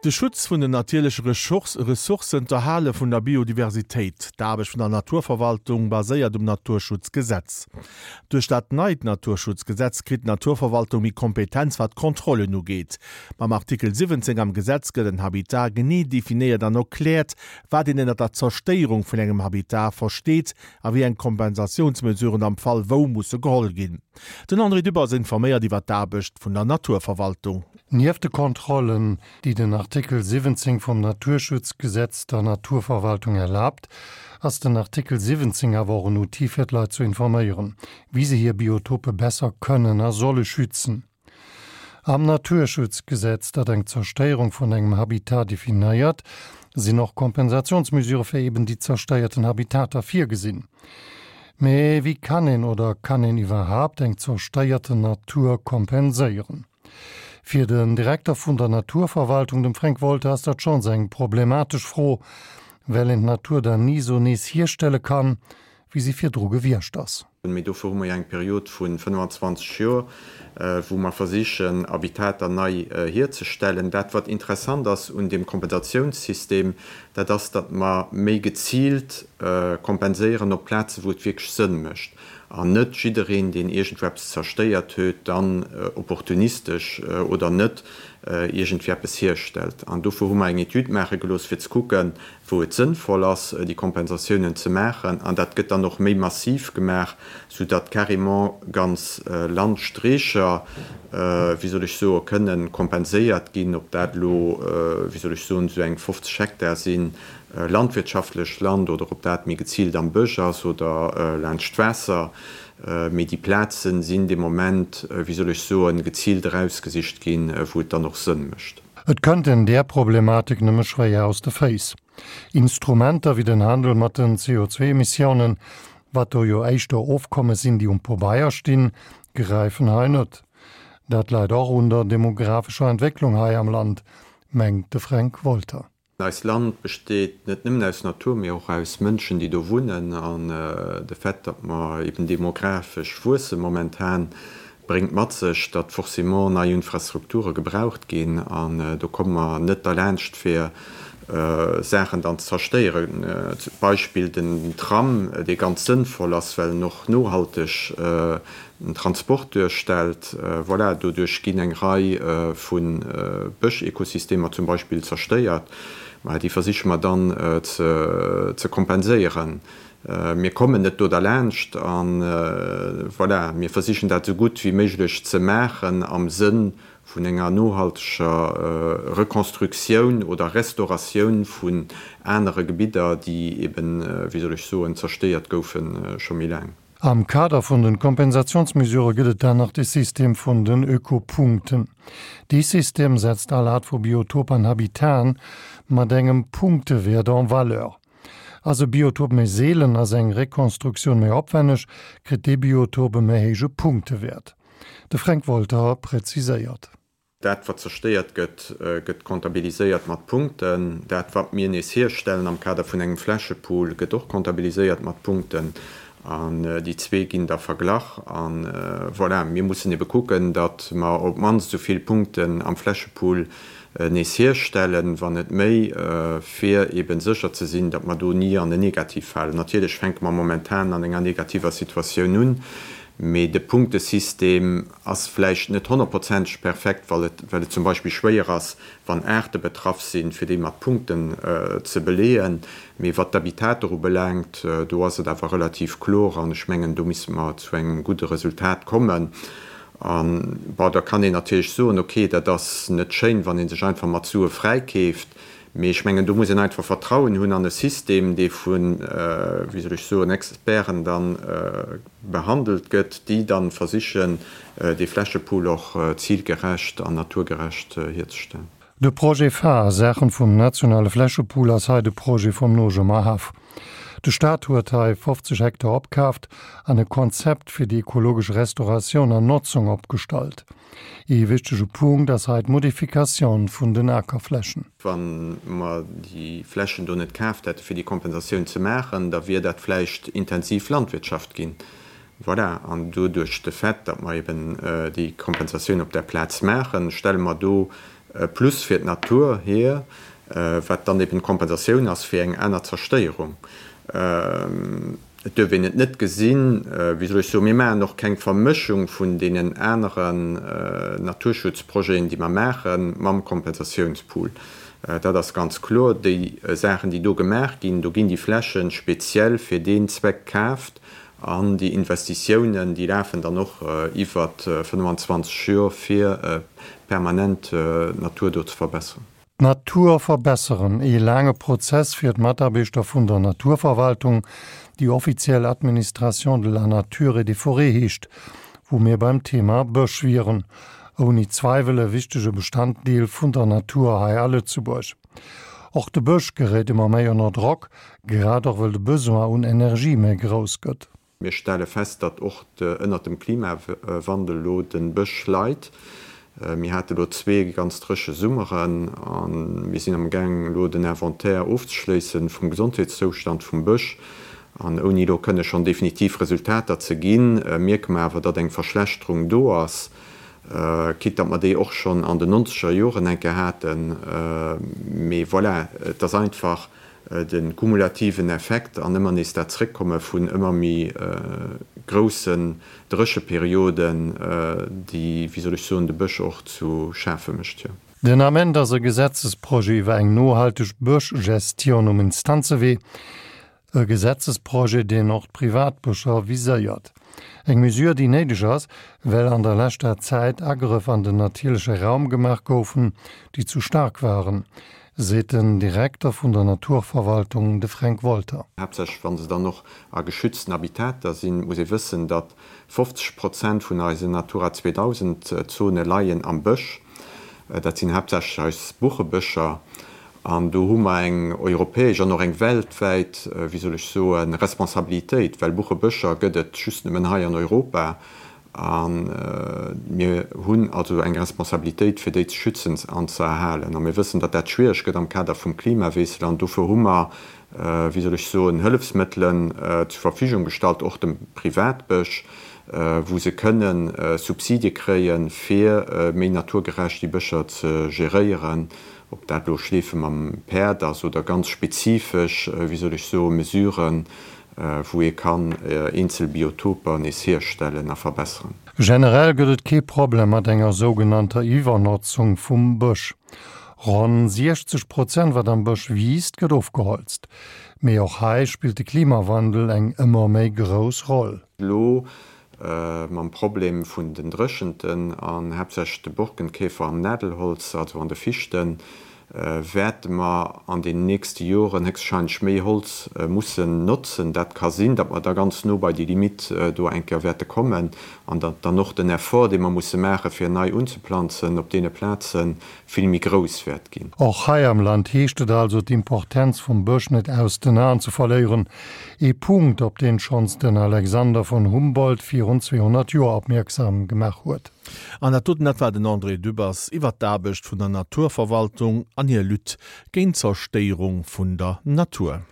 De Schutz vun den natierleche Ressourcen, d'Erhale vun der Biodiversitéit, d'Aarbecht vun der Naturverwaltung baséiert um Naturschutzgesetz. Duerch dat neit Naturschutzgesetz kritt d'Naturverwaltung méi Kompetenz wat d'Kontrollen ugeet. Mam Artikel 17 am Gesetz gëtt en Habitat genee definéiert an erkläert, wat een ënnert der Zerstéierung vun engem Habitat versteet a wéi eng Kompensatiounsmesuren am Fall wou musse geholl ginn. Den André Dübbers informéiert iwwer d'Aarbecht vun der Naturverwaltung. Nieft de Kontrollen, déi den Artikel 17 vum Naturschutzgesetz der Naturverwaltung erlaabt, ass den Artikel 17 awer och en Outil fir d'Leit ze informéieren, wéi se hir Biotope besser kënnen a solle schützen. Am Naturschutzgesetz, dat eng Zerstéierung vun engem Habitat definéiert, sinn och Kompensationsmesure fir eben déi zerstéierten Habitater virgesinn. Mee wéi kann een oder kann een iwwerhaapt eng zerstéierten Natur kompenséieren? Fir den Direkter vun der Naturverwaltung, dem Fränk Wolter, ass dat schonns eng problematesch Fro, well een d'Natur dann ni esou nees hierstelle kann, wéi si virdru gewiescht ass. Mee dofir hu mer jo eng Period vu 25 Joer, wou mer versichen, Habitater nei hierzestellen. Dat, wat interessant ass un deem Kompensatiounssystem, dat ass, datt mer méi geziilt kompenséieren op Plazen, wou et wierklech Sënn mécht. An net jiddereen, deen iergendwou eppes zerstéiert huet, dann opportunistesch oder net iergendwéi eppes hierstellt. An dofir hu mer eng Etüd maache gelooss, fir ze kucken, wou et sënnvoll ass, déi Kompensatiounen ze maachen. An dat gëtt dann och méi massiv gemaach, soudatt carrément ganz Landstreecher, wéi soll ech soen, kënnen kompenséiert ginn, ob dat elo, wéi soll ech soen, esou eng 50 Hektar sinn, landwirtschaftlech Land oder ob dat méi geziilt am Bësch ass oder laanscht d'Waasser, mee déi Plazen sinn de Moment, wéi soll ech soen, geziilt erausgesicht ginn, wou et dann och Sënn mécht. Et kënnt een där Problematik nëmme schwéier aus de Féiss. Instrumenter wéi den Handel mat den CO2-Emissiounen, wat do jo éischter Ofkommes sinn, déi um Pobeier stinn, gräifen hei net. Dat läit och un der demographescher Entwécklung hei am Land, mengt de Fränk Wolter. Eist Land besteet net nëmmen aus Natur, mee och aus Mënschen, déi do wunnen. An de Fait, datt mer eben demografesch wuesse momentan, bréngt mat sech, datt forcément nei Infrastrukture gebraucht ginn. An do komme mer net derlaanscht, fir Saachen dann ze zerstéieren. Beispill den Tram, dee ganz sënnvoll ass, well en och nohalteg den Transport duerstellt. Voilà, doduerch ginn eng Rei vu Bëschekosystemer zum Beispill zerstéiert. Mä déi versiche mer dann ze kompenséieren. Mir kommen net do derlaanscht a voilà, mir versichen dat esou gutt wéi méiglech ze maachen am Sënn vun enger nohalteger Reconstructioun oder Restauratioun vun anere Gebidder, déi eben, wéi soll ech soen, zerstéiert goufe scho méi laang. Am Kader vun den Kompensationsmesurë gëtt et dann nach de System vun den Ökopunkten. Dee System setzt all Art vu Biotop an Habitaten mat engem Punktewäert en valeur. Ass e Biotop méi seelen, ass eng Rekonstruktioun méi opwenneg, kritt dee Biotop e méi héije Punktewäert. De Fränk Wolter präziséiert. Dat, wat zerstéiert gëtt, gëtt comptabiliséiert mat Punkten. Dat, wat mir nees hierstellen am Kader vun engem Flächepool, gëtt och comptabiliséiert mat Punkten. An déi zwee ginn da verglach. A voilà, mir mussen ebe kucken, datt mer op d'mannst esou vill Punkten am Flächepool nees hierstellen, wann net méi, fir ebe sécher ze sinn, datt mer do ni an en Negativ falen. Natierlech fänke mer momentan an enger negativer Situatioun un, mee de Punktesystem ass vläicht net honnertprozenteg perfekt, well et well et zum Beispill schwéier ass, wann Aarte betraff sinn, fir déi mat Punkten ze beleeën. Mee wat d'Habitater ubelaangt, do ass et awer relativ kloer an ech mengen, do misste mer zu engem gudde Resultat kommen. A bon, da kann een natierlech soen, okay, dat ass net schéin, wann ee sech einfach mat Sue fräikeeft. Mee ech mengen, do muss een einfach Vertrauen hunn an e System, dee vu, wéi soll ech soen, Experten da behandelt gëtt, déi da versichen, dee Flächepool och zilgerecht an naturgerecht hierzestellen. De Projet phare a Saachen vum nationale Flächepool ass hei de Projet vum Nojemer Haff. De Staat huet hei 50 Hektar opkaaft an e Konzept fir déi ekologesch Restauratioun an Notzung opgestallt. Ee wichtege Punkt ass hei d'Modifikatioun vun den Akerflächen. Wa mer déi Flächen do net kaaft hätte fir déi Kompensatioun ze maachen, da wier dat vläicht intensiv Landwirtschaft ginn. Voilà, an doduerch de Fait, datt mer eben déi Kompensatioun op där Plaz maachen, stelle mer do. Plus fir d'Natur hier, wat dann eben d'Kompensatioun ass fir eng aner Zerstéierung. Et duerf een et net gesinn, wéi soll ech soen, mir maachen och keng Vermëschung vun deenen aneren Naturschutzprojeten, déi mer maachen, mam Kompensatiounspool. Dat ass ganz kloer. Déi Saachen, déi do gemaach ginn, do ginn déi Fläche speziell fir deen Zweck kaaft an déi Investitiounen, déi lafen dann och iwwer 25 Jor, fir permanent d'Natur do ze verbesseren. D'Natur verbesseren, ee laange Prozess fir d'Mataarbechter vun der Naturverwaltung, déi offiziell Administration de la nature et des forêts heescht, wou mir beim Thema Bësch wieren. Ouni Zweiwel e wichtege Bestanddeel vun der Natur hei a Lëtzebuerg. Och de Bësch geréit ëmmer méi ënner Drock, grad och wëll de Besoin un Energie méi grouss gëtt. Mir stelle fest, datt och ënnert dem Klimawandel elo de Bësch leit. Mir hate elo zwee ganz dréche Summeren a mir sinn amgaang elo den Inventaire ofzeschléisse vum Gesondheetszoustand vum Bësch. An ouni elo kënne schonn definitiv Resultater ze ginn, mierke mer awer, datt eng Verschlechterung do ass, quitte datt mer déi och schonn an den nonzeger Joren eng Kéier haten. Mee voilà, et ass einfach de kumulativen Effekt an ëmmer nees dat Zréckkomme vun ëmmer méi groussen Drécheperioden, déi, wéi soll ech soen, de Bësch och zu schafe mécht, jo. Den Ament ass e Gesetzesprojet iwwer eng nohalteg Bëschgestion um Instanzewee. E Gesetzesprojet, deen och d'Privatbëscher viséiert. Eng Mesure, déi néideg ass, well an der leschter Zäit Agrëff an den natierleche Raum gemaach goufen, déi zu staark waren. Seet den Direkter vun der Naturverwaltung, de Fränk Wolter. Haaptsächlech wa se dann och a geschützten Habitater sinn. Et muss ee wëssen, datt 50 Prozent vun eisen Natura 2000 Zone leien am Bësch. Dat sinn haaptsächlech eis Buchebëscher. An do hu mer eng europäesch an och eng weltwäit, wéi soll ech soen, Responsabilitéit, well Buchebëscher gëtt et just nëmmen hei an Europa. A mir hunn also eng Responsabilitéit, fir déi ze schützen an ze erhalen. A mir wëssen, datt dat schwiereg gëtt am Kader vum Klimawiessel. An dofir hu mer, wéi soll ech soen, Hëllefsmëttelen zur Verfügung gestallt, och dem Privatbësch, wou se kënne Subsidie kréien, fir méi naturgerecht déi Bëscher ze geréieren, ob dat elo Schleefe mam Päerd ass oder ganz spezifesch, wéi soll ech soen, Mesuren, wou ee kann eenzel Biotoper nees hierstellen a verbesseren. Generell gëtt et kee Problem mat enger sougenannter Iwwernotzung vum Bësch. Ronn 60 Prozent wat am Bësch wiisst, gëtt ofgeholzt. Mee och hei spillt de Klimawandel eng ëmmer méi grouss Roll. Elo mam Problem vun den Dréchenten an haaptsächlech de Borkenkäfer am Nadelholz, also an de Fichten, wäerte mer an den nächste Joren héchstwahrscheinlech méi Holz mussen notzen. Dat ka sinn, datt mer da ganz no bei déi Limitt do eng Kéier wäerte kommen an datt dann och den Effort, dee mer musse maachen, fir nei unzeplanzen op deene Plazen, vill méi grouss wäert ginn. Och hei am Land heescht et also, d'Importenz vum Bësch net aus den Aen ze verléieren. Ee Punkt, op deen schonns den Alexander von Humboldt virun 200 Joer opmierksam gemaach huet. An dat doten, dat war den André Dübbers iwwert d'Aarbecht vun der Naturverwaltung an hir Lutte géint d'Zerstéierung vun der Natur.